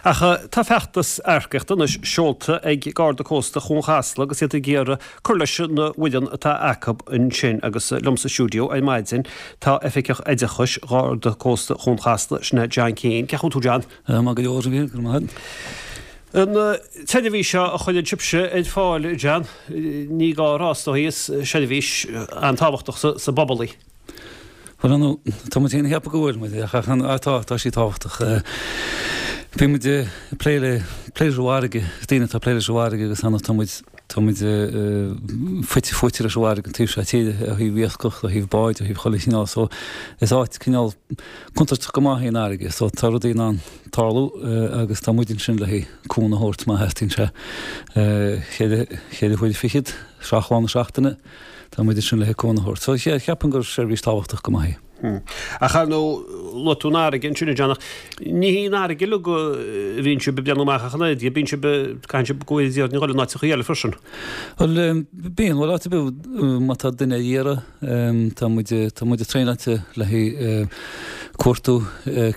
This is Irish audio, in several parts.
Ach tá feachtas earcaíochta anois seolta ag Garda Cósta Chuan Chasla agus iad ag iarraidh cur leis an bhfoireann atá acu ansin agus liom sa stiúideo ar maidin tá Oifigeach Oideachais Gharda Cósta Chuan Chasla, sin é John Keane. Cén chaoi a bhfuil tú John? Maith go leor, a Mhíchíl, go raibh maith agat. An tseirbhís seo a chuireann sibhse ar fáil, John, ní gá a rá is dóigh, is seirbhís an-tábhachtach sa bpobal í. Bhuel, ar ndóigh, tá muid féin ag ceapadh go bhfuil muid, ach tá, tá sí tábhachtach. Bíonn muid ag plé le, plé leis an bhfarraige, is daoine atá ag plé leis an bhfarraige agus ar ndóigh tá muid, tá muid fite fuaite leis an bhfarraige an taobh seo tíre, ó thaobh iascach, ó thaobh báid, ó thaobh chuile chineál, so is áit cineál contúirteach go maith í an fharraige, so tá rudaí in ann tarlú agus tá muid ansin le haghaidh cúnamh a thabhairt má theastaíonn sé. Cheithre huaire fichead, seacht lá na seachtaine, tá muid ansin le haghaidh cúnamh a thabhairt. So cheapfainn gur seirbhís tábhachtach go maith í. Ach ar ndóigh, luaigh tú an fharraige ansin, a John, ach ní hí an fharraige uilig a bhíonn sibh ag breathnú amach ach an oiread, bíonn sibh, caitheann sibh go bhfuil iad in áiteachaí eile freisin. Bhuel, bíonn, bhuel áit ar bith má tá duine ar iarraidh, Tá muid, tá muid traenáilte le haghaidh cuartú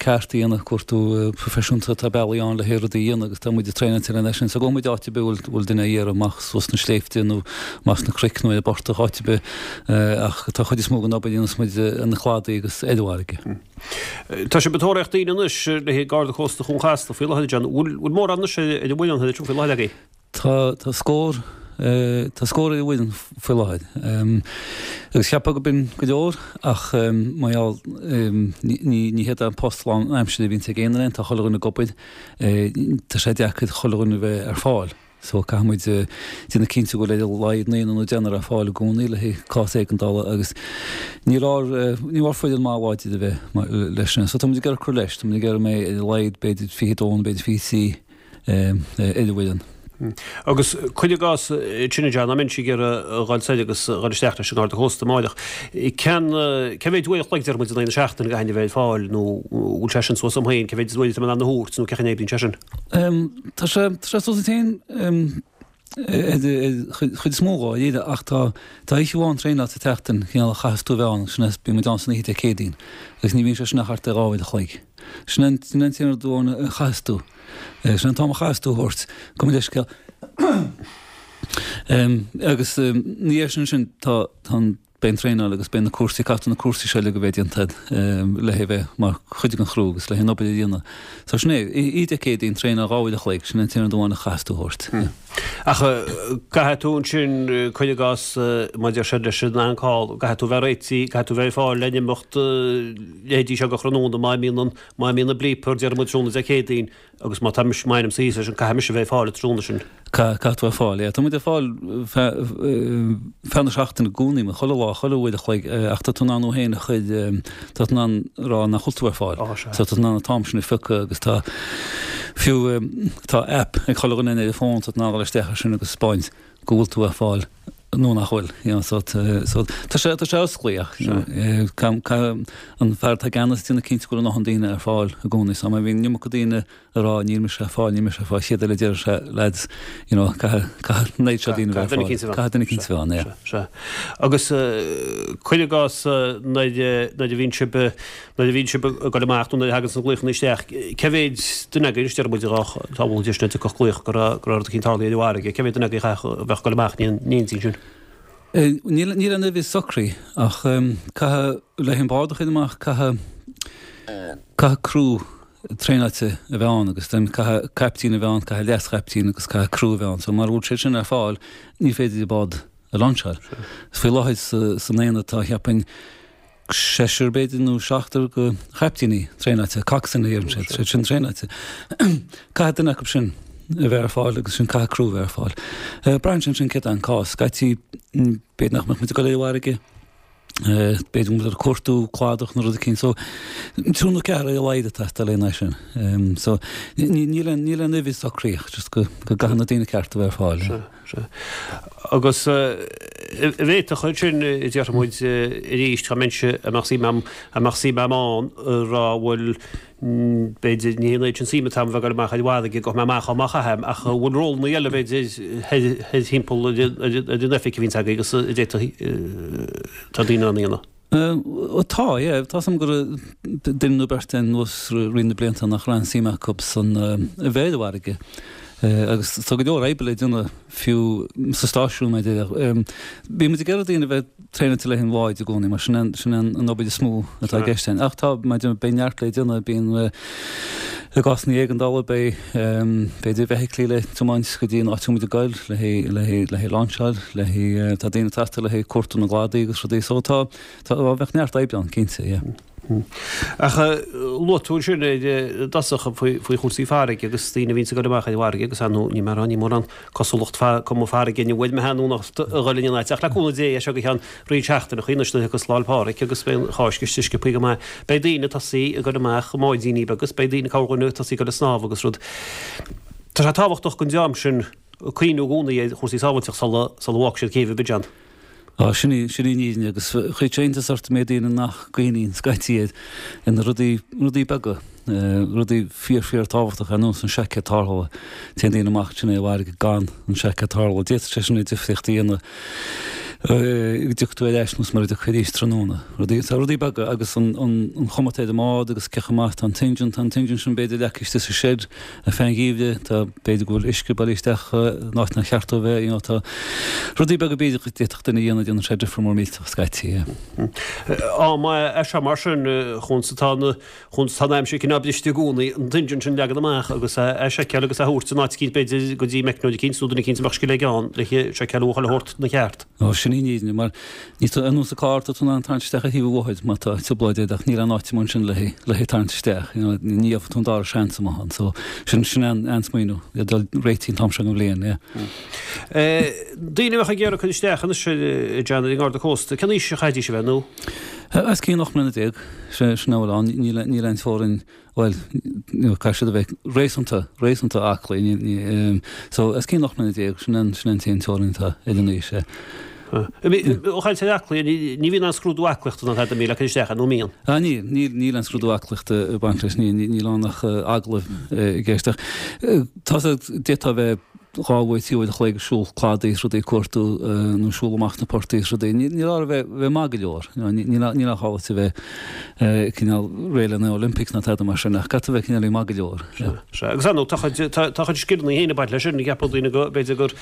ceart a dhéanamh, cuartú proifisiúnta, tá bealaí ann le haghaidh rudaí a dhéanamh agus tá muid traenáilte lena sin. So gabhann muid áit ar bith a bhfuil duine á iarraidh, amach suas na sléibhte nó amach sna cnoic nó ar an bportach, áit ar bith ach tá chuid is mó den obair a dhéanas muid ar na cladaí agus ar an bhfarraige. Tá sibh ag tóraíocht daoine anois le haghaidh Garda Cósta Chuan Chasla faoi láthair, John. Bhfuil mórán anois ar an bhfoireann faoi láthair agaibh? Tá, tá scór, tá scór ar an bhfoireann faoi láthair. Agus cheapfá go b'in go leor ach mar gheall, ní, ní hiad an post lán aimsire a bhíonns ag aon duine, tá chuile dhuine ag obair, tá sé deacair chuile dhuine a bheith ar fáil. So caithfidh muid déanamh cinnte go bhfuil ar a laghad naonúr nó deichniúr ar fáil i gcónaí le haghaidh cás éigeandála agus níl ár, níl ár foireann maith láidir a bheith leis sin. So tá muid ag iarraidh cur leis, tá muid ag iarraidh go mbeidh ar a laghad b'fhéidir 22 nó b'fhéidir 23 ar an bhfoireann. Agus cuir i gcás ansin a John, dá mbeinnse ag iarraidh a dhul soir agus a dhul isteach leis an nGarda Cósta amáireach, cén cé mhéid uair a chloig deir muid in aghaidh na seachtaine a gcaithfinn a bheith ar fáil nó bhfuil sé sin suas dom féin, cé mhéid uair atá mé in ann a thabhairt nó cén chaoi a n-oibríonn sé sin? Tá sé tá sé suas duit féin ar chuid is mó dháiríre ach tá tá oíche amháin traenáil sa tseachtain cineál a chaithfeas tú a bheith ann sin é bíonn muid ann san oíche Dé Céadaoin agus ní bhíonn sé sin ach thart ar dhá uair a chloig. Sin an sin an t-aon rud amháin a chaithfeas tú. Sin an t-am a chaithfeas tú a thabhairt. Gabh mo leithscéal. Agus ina dhiaidh sin sin tá tá an beidh an traenáil agus beidh na cúrsaí caithfidh na cúrsaí seo uilig a bheith déanta agat le haghaidh bheith mar chuid den chriú agus le haghaidh an obair a dhéanamh. So sin é, oíche Dé Céadaoin traenáil dhá uair a chloig, sin an t-aon rud amháin a chaithfeas tú a thabhairt. Ach caithfidh tú ansin, cuir i gcás, mar a deir siad leis an on-call, caithfidh tú bheith réitithe, caithfidh tú bheith ar fáil le n-imeacht leithéidí seo de thráthnóna má imíonn an, má imíonn an bleeper, déarfaidh muid tráthnóna Dé Céadaoin agus má tá mise, má ainmse thíos leis an, caithfidh mise a bheith ar fáil an tráthnóna sin. Caithfidh tú bheith ar fáil, yeah. Tá muid ar fáil feadh, feadh na seachtaine i gcónaí, chuile lá, chuile uair a chloig, ach tá tú in ann thú féin a chur, tá tú in ann rá nach bhfuil tú ar fáil. Ó, sea. So tá tú in ann an t-am sin a phiocadh agus tá, fiú, tá app ag chuile dhuine ar a fón, tá tú in ann dul isteach ar sin agus 'spáint go bhfuil tú ar fáil. nó nach bhfuil, you know, so so tá sé tá sé osclaí ach you know, eh, caithfidh an fear atá i gceannas déanamh cinnte go bhfuil a ndóthain daoine ar fáil i gcónaí. So má bhíonn an iomarca daoine ag rá níl mise ar fáil, níl mise ar fáil, chéad eile deir sé lads, you know, caithfidh caithfidh an oiread seo daoine bheith ar fáil. Caithfidh duine eicínt a bheith ann, yeah. Sea. Agus eh, cuir i gcás eh, nuair eh, nuair a bhíonn sibh eh, nuair a bhíonn sibh ag dul amach nó nuair a thagann na glaochanna isteach, cé mhéid duine agaibh, anois deir muid dhá bhfuil deis na dtiocfadh glaoch go raibh go raibh rud eicínt tarlaithe ar an bhfarraige, cé mhéid duine agaibh a chaithfeadh a bheadh ag dul amach in éindí ansin? Níl níl aon uimhir socraithe ach caithfidh le an bád a chur amach caithfidh caithfidh criú traenáilte a bheith ann agus then caithfidh caiptín a bheith ann, caithfidh leas-chaiptín agus caithfidh criú a bheith ann. So mara bhfuil sé sin ar fáil ní féidir an bád a lainseáil. Faoi láthair san aonad tá cheapfainn seisear b'fhéidir nó seachtar de chaiptíní traenáilte, coxswain a deireann siad, siad sin traenáilte. Caithfidh duine acu sin a bheith ar fáil agus sin caithfidh criú a bheith ar fáil. Braitheann sé ansin céard é an cás. Scaití b'fhéidir nach mbeadh muid ag dul ar an bhfarraige, b'fhéidir go mbeadh ag cuartú cladach nó rud eicínt. So triúr nó ceathrar ar a laghad ag teastáil lena aghaidh sin. So níl aon uimhir socraithe ach just go gcaithfidh na daoine cearta a bheith ar fáil. Sea. Sea. Agus an bhféadfadh ansin, déarfaidh muid arís, dá mbeinnse, dá mbeadh suim a'm, dá mbeadh suim a'm ann, a rá bhuel, b'fhéidir, ní hé an oiread sin suim atá a'm bheith ag dul amach ar an bhfarraige, gabhfaidh mé amach má chaithim, ach an bhfuil rólanna eile, b'fhéidir, thoir thimpeall ar an oifig a bhíonns agaibh agus a d'fhéadfadh, tá daoine in ann a dhéanamh? Tá, yeah. Tá 's a'm go raibh duine nó beirt anuas i rith na blianta nach raibh aon suim acu san a bheith ar an bhfarraige. Agus tá go leor oibre le déanamh fiú sa stáisiún mar a déarfá. Bíonn muid ag iarraidh daoine a bheith traenáilte le haghaidh an bháid i gcónaí mar sin é sin é an obair is mó atá i gceist ann. Ach tá, mar a déarfá, beidh neart le déanamh, bíonn i gcásanna éigeandála beidh b'fhéidir feithiclí le tiomáint go dtí an áit a bhfuil muid ag goil le haghaidh le haghaidh le haghaidh lainseáil, le haghaidh tá daoine ag teastáil le haghaidh cuartú na gcladaí agus rudaí so tá tá bheadh neart oibre ann cinnte, yeah. Ach luaigh tú ansin i dtosach faoi faoi chúrsaí farraige agus daoine a bhíonns ag dul amach ar an bhfarraige agus ar ndóigh ní mar ní mórán cosúlacht fa cuma farraige inniu uaidh mé nó a dhul in aon áit ach le cúnamh Dé as seo go ceann roinnt seachtaineachaí anois nuair a thiocfas Lá 'le Pádraig agus beidh an Cháisc istigh sciobthaí go maith. Beidh daoine ag tosaí ag dul amach i mbáidíní beaga agus beidh daoine corrdhuine ag tosaí ag dul ag snámh agus rud. Tá sé tábhachtach don dream sin cuimhniú i gcónaí ar chúrsaí sábháilteachta sula sula bhfágfaidh siad céibh Abidjan. Á, sin í, sin í an fhírinne agus chuirfeadh sé iontas ort an méid daoine nach gcuimhníonn scaití ar ar na rudaí, rudaí beaga. Rudaí fíor fíor tábhachtach ar nós an seaicéad tarrthála. Téann daoine amach ansin ar an bhfarraige gan an seaicéad tarrthála. D'fhéadfadh sé sin an difríocht a dhéanamh go dtiocfaidh tú ar ais nó mura dtiocfaidh arís tráthnóna. Rudaí, tá rudaí beaga agus an chuma atá ar an mbád agus cé chomh maith atá an t-engine, tá an t-engine sin b'fhéidir leagtha istigh sa shed ar feadh an gheimhridh, tá b'fhéidir go bhfuil uisce bailithe isteach in áit nár cheart dó a bheith, you know, tá rudaí beaga b'fhéidir go d'fhéadfadh duine a dhéanamh, déanann sé difear mór millteach scaití, yeah. Am é seo mar sin, chúns atá na Chúns tá an aimsir cineál briste i gcónaí, an t-engine sin leagan amach agus é seiceáil agus é thabhairt in áit eicínt b'fhéidir go dtí meicneoir eicínt nó duine eicínt a mbeadh scil aige ann le seiceáil a bhuachaill a thabhairt 'na cheart. Ó, sin í an fhírinne, mar níl tú ar nós an carr, tá tú in ann tarraingt isteach ar thaobh an bhóthair má tá trioblóid agat ach níl aon áit amuigh ansin le le hé tarraingt isteach, you know, ní gheobhaidh tú an dara seans amach ann. So, sin, sin an, an smaoineamh, le dul réitithe an t-am seo den bhliain, yeah. Daoine a bheadh ag iarraidh cur isteach anois a John ar an nGarda Cósta, cén aois a chaithfidís a bheith nó? Os cionn 18 mbliana. Sin a bhfuil ann. Níl níl aon teorainn, bhuel, caithfidh siad a bheith réasúnta, réasúnta aclaí. Ní, ní, so, os cionn 18 mbliana, sin an, sin an t-aon teorainn atá ar an aois, yeah. Ó chaint ar aclaí, ní bhíonn aon scrúdú aclaíochta ná tada le cur isteach air, nó an mbíonn? Ah, níl, níl, níl aon scrúdú aclaíochta ag baint leis, níl, níl ann ach agallamh i gceist. Ach tá a, d'fhéadfá a bheith dhá uair, trí uair a chloig ag siúl cladaí is rudaí ag cuartú nó siúl amach na portaigh is rudaí. Níl orthu bheith bheith maith go leor. Níl níl ach ábalta a bheith cineál réidh le na Olympics ná tada mar sin ach caithfidh tú bheith cineál maith go leor. Sea, agus ar ndóigh tá chuid tá tá chuid scileanna féin ag baint leis sin, ceapadh daoine go b'fhéidir gur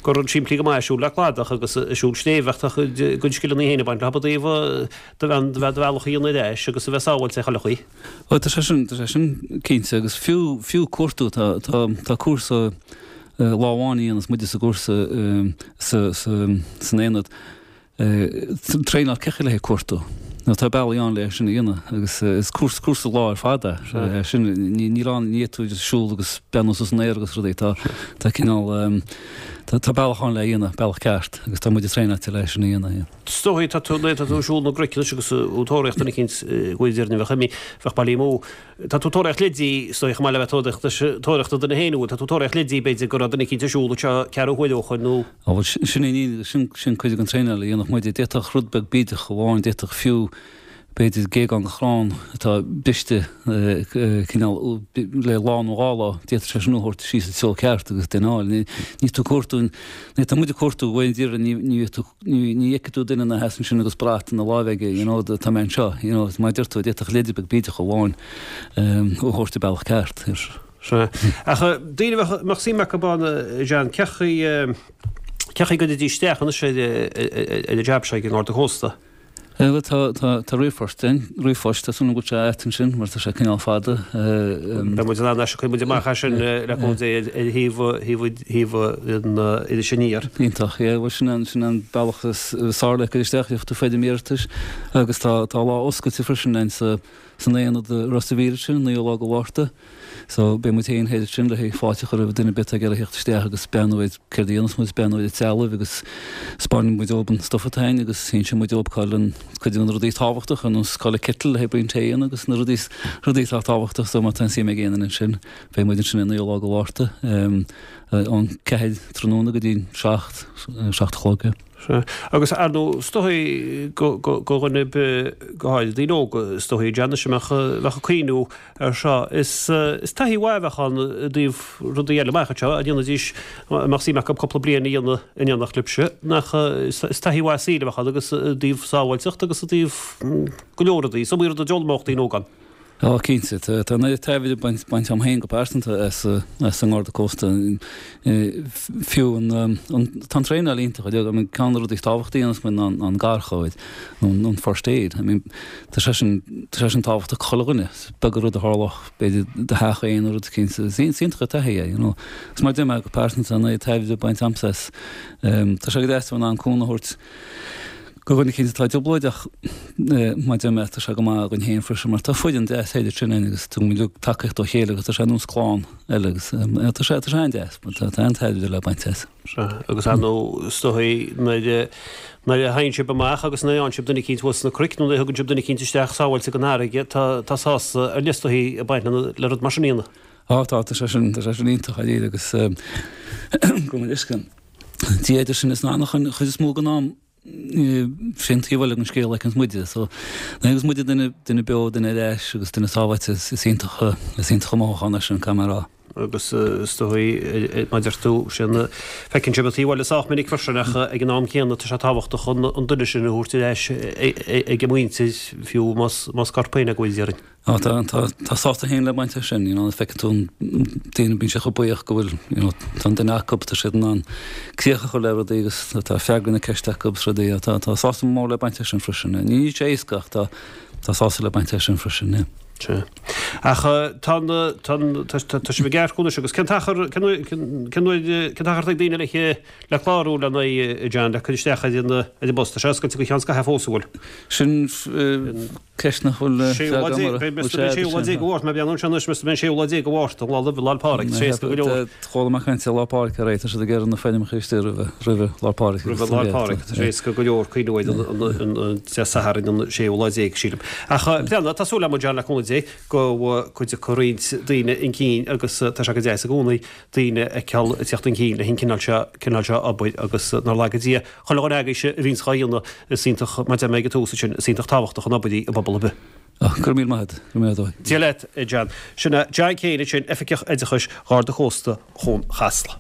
gur rud simplí go maith é siúl le cladach agus siúl sléibhe ach tá chuid gcuid scileanna féin ag baint leo i dtaobh do do do bhealach a dhéanamh ar ais agus a bheith sábháilte ar chuile chaoi. Bhuel, tá sé sin, tá sé sin cinnte agus fiú, fiú cuartú, tá, tá, tá cúrsa lá amháin a dhéanas muide sa gcúrsa sa, sa, san aonad, traenáil cé chaoi le haghaidh cuartú. Nó tá bealaí ann le sin a dhéanamh agus is cúrsa, cúrsa lá ar fad é. Sin, ní, níl ann, ní fhéadfaidh tú just siúl agus beannú suas san aer agus rudaí, tá, tá cineál, tá, tá bealach ann le a dhéanamh, bealach ceart agus tá muide traenáilte le sin a dhéanamh, yeah. Is dóigh, tá tú, tá tú ag siúl na gcnoic anois agus ag tóraíocht duine eicínt go bhfuil deirne bheadh imithe, bheadh bailithe amú. Tá tú ag tóraíocht leidí, is dóigh, chomh maith le bheith tóraíocht, tóraíocht do dhuine féin, tá tú ag tóraíocht leidí, b'fhéidir, go raibh duine eicínt ag siúl anseo ceathrú huaire ó shoin nó. Á bhuel, sin é, sin, sin cuid den traenáil a dhéanfadh muide. D'fhéadfadh rud beag bídeach amháin, d'fhéadfadh fiú, b'fhéidir géagán de chrann atá briste cineál le lá nó dhá lá, d'fhéadfadh sé sin a thabhairt síos sa treo ceart agus duine a fháil. Ní tú ag cuartú, ní tá muid ag cuartú uair an deireadh, ní ní tú ní ní fheicfidh tú duine ina sheasamh ansin agus brat ina láimh aige, you know, tá mé anseo, you know, mar a deir tú, d'fhéadfadh leide beag bídeach amháin a thabhairt an bealach ceart. Sea. Ach daoine a mbeadh suim acu ann, John, cé chaoi cé chaoi go gcuirfidís isteach anois ar ar an jab seo ag an nGarda Cósta? Bhuel, tá, tá, tá ríomhphost ann, ríomhphost, tá súil agam go bhfuil sé agat ansin mar tá sé cineál fada. Beidh muid in ann é sin, cuirfidh muid amach é sin le cúnamh Dé ar thaobh, thaobh, thaobh an Iris Aniar. Iontach, yeah, bhuel sin an, sin an bealach is fearr le cur isteach, gheobhaidh tú foirm iarratais agus tá, tá lá oscailte freisin ann sa, san aonad i Ros a' Mhíl ansin, naoú lá de Mhárta. So, beidh muid féin thoir ansin le haghaidh fáilte a chur roimh duine ar bith atá ag iarraidh theacht isteach agus breathnú ar céard a dhéanas muid, breathnú ar an trealamh agus 'spáinfidh muid dóibh an stuff atá againn agus inseoidh muid dóibh cá bhfuil an cuid de na rudaí tábhachtacha ar nós cá bhfuil an kettle le haghaidh braon tae a dhéanamh agus na rudaí rudaí atá tábhachtach so má tá aon suim ag aon duine ansin beidh muid ansin ar naoú lá de Mhárta ón ceathair tráthnóna go dtí an seacht, seacht a chlog. Sea. Agus ar ndóigh, is dóigh go dhuine ar bith, go háirid daoine óga, is dóigh, John, anois a mbeadh, bheadh ag cuimhniú ar seo, is, is taithí mhaith a bheadh ann i dtaobh rudaí eile amach anseo, a dhéanfaidís, a mbeadh suim acu cúpla bliain a dhéanamh in éineacht libhse, nach, is taithí mhaith saoil a bheadh ann agus i dtaobh sábháilteacht agus i dtaobh go leor rudaí, is iomaí rud a d'fhoghlaimeodh daoine óga ann. Á, cinnte. Tá an oiread tairbhe bainte agam féin go pearsanta as an nGarda Cósta. Fiú an, tá an traenáil iontach. I mean, ceann de na rudaí is tábhachtaí a dhéanas muid ná an garchabhair, nó an first aid. I mean, tá sé sin, tá sé sin tábhachtach do chuile dhuine. Is beag an rud a tharlódh, b'fhéidir, i do theach féin nó rud eicínt. Is iontach an taithí é, you know. Agus mar a deir mé, go pearsanta, tá an oiread tairbhe bainte agamsa as. Tá sé go deas a bheith in ann cúnamh a thabhairt. Do dhuine eicínt atá i dtrioblóid ach mar a deir mé tá sé go maith againn féin freisin mar tá foireann deas thoir ansin againn agus tugann muid uilig tacaíocht dá chéile agus tá sé ar nós clann eile agus tá sé tá sé an-deas tá tá an-tairbhe le baint as. Sea, agus ar ndóigh is dóigh nuair a nuair a thagann sibh amach agus nuair a fhaigheann sibh duine eicínt thuas sna cnoic nó nuair a thugann sibh duine eicínt isteach sábháilte den fharraige tá tá sásamh ar leith is dóigh ag baint le rud mar sin a dhéanamh. Á tá tá sé sin tá sé sin iontach dáiríre agus gabh mo leithscéal. Dia idir sinn is an anachain, an chuid is mó den am, sé an taobh eile den scéal a fheiceanns muide. So, nuair a fheiceanns muide duine, duine beo, duine ar ais agus duine sábháilte, is iontach, is iontach an mothúchán é sin, caithfidh mé a rá. Agus is dóigh, mar a deir tú, sin, feiceann sibh an taobh eile sách minic freisin ach ag an am céanna tá sé tábhachtach an duine sin a thabhairt ar ais ag a muintir, fiú más, más corp féin é go bhfuil, déarfainn. Á, tá, tá, tá sásamh féin le baint as sin, you know, feiceann tú an daoine, bíonn siad chomh buíoch go bhfuil, you know, tá an duine acu, tá siad in ann críoch a chur le rudaí agus tá freagra na ceiste acu agus rudaí, tá, tá sásamh mór le baint as sin freisin. Níl sé éasca ach tá, tá sásamh le baint as sin freisin, yeah. Sea. Ach tá an, tá an, tá, tá sibh ag earcú anois agus cén t-achar, cén uair, cén uair, cén t-achar atá ag daoine le, le clárú lena aghaidh, a John, le cur isteach ar an, ar an bpost? Tá sé oscailte go ceann scaithimh fós, an bhfuil? Sin, Ceist nach bhfuil freagra agam uirthi. Beidh an séú lá déag de Mhárta, mé ag breathnú anseo anois, meas tú beidh an séú lá déag de Mhárta, an lá roimh Lá 'le Pádraig, tá sé éasca go leor. Chuala mé caint ar Lá Pádraig aréir, tá siad ag iarraidh na foirmeacha istigh roimhe, roimhe Lá Pádraig. Roimhe Lá Pádraig, tá sé éasca go leor cuimhniú ar an Dé Sathairn an séú lá déag, sílim. Ach breathnaigh, tá súil agam, John, le cúnamh Dé, go dtiocfaidh roinnt daoine chun cinn agus tá sé go deas i gcónaí daoine a fheiceáil ag teacht chun cinn leis an cineál seo, cineál seo obair agus nár laga Dia chuile dhuine agaibhse a bhíonns dhá dhéanamh, is iontach, mar a deir mé ag an tús ansin, is iontach tábhachtach an obair í i bpobal ar bith. Go raibh míle maith agat, go raibh míle maith agat. Dia leat, a John. Sin é John Keane ansin, Oifigeach Oideachais Gharda Cósta Chuan Chasla.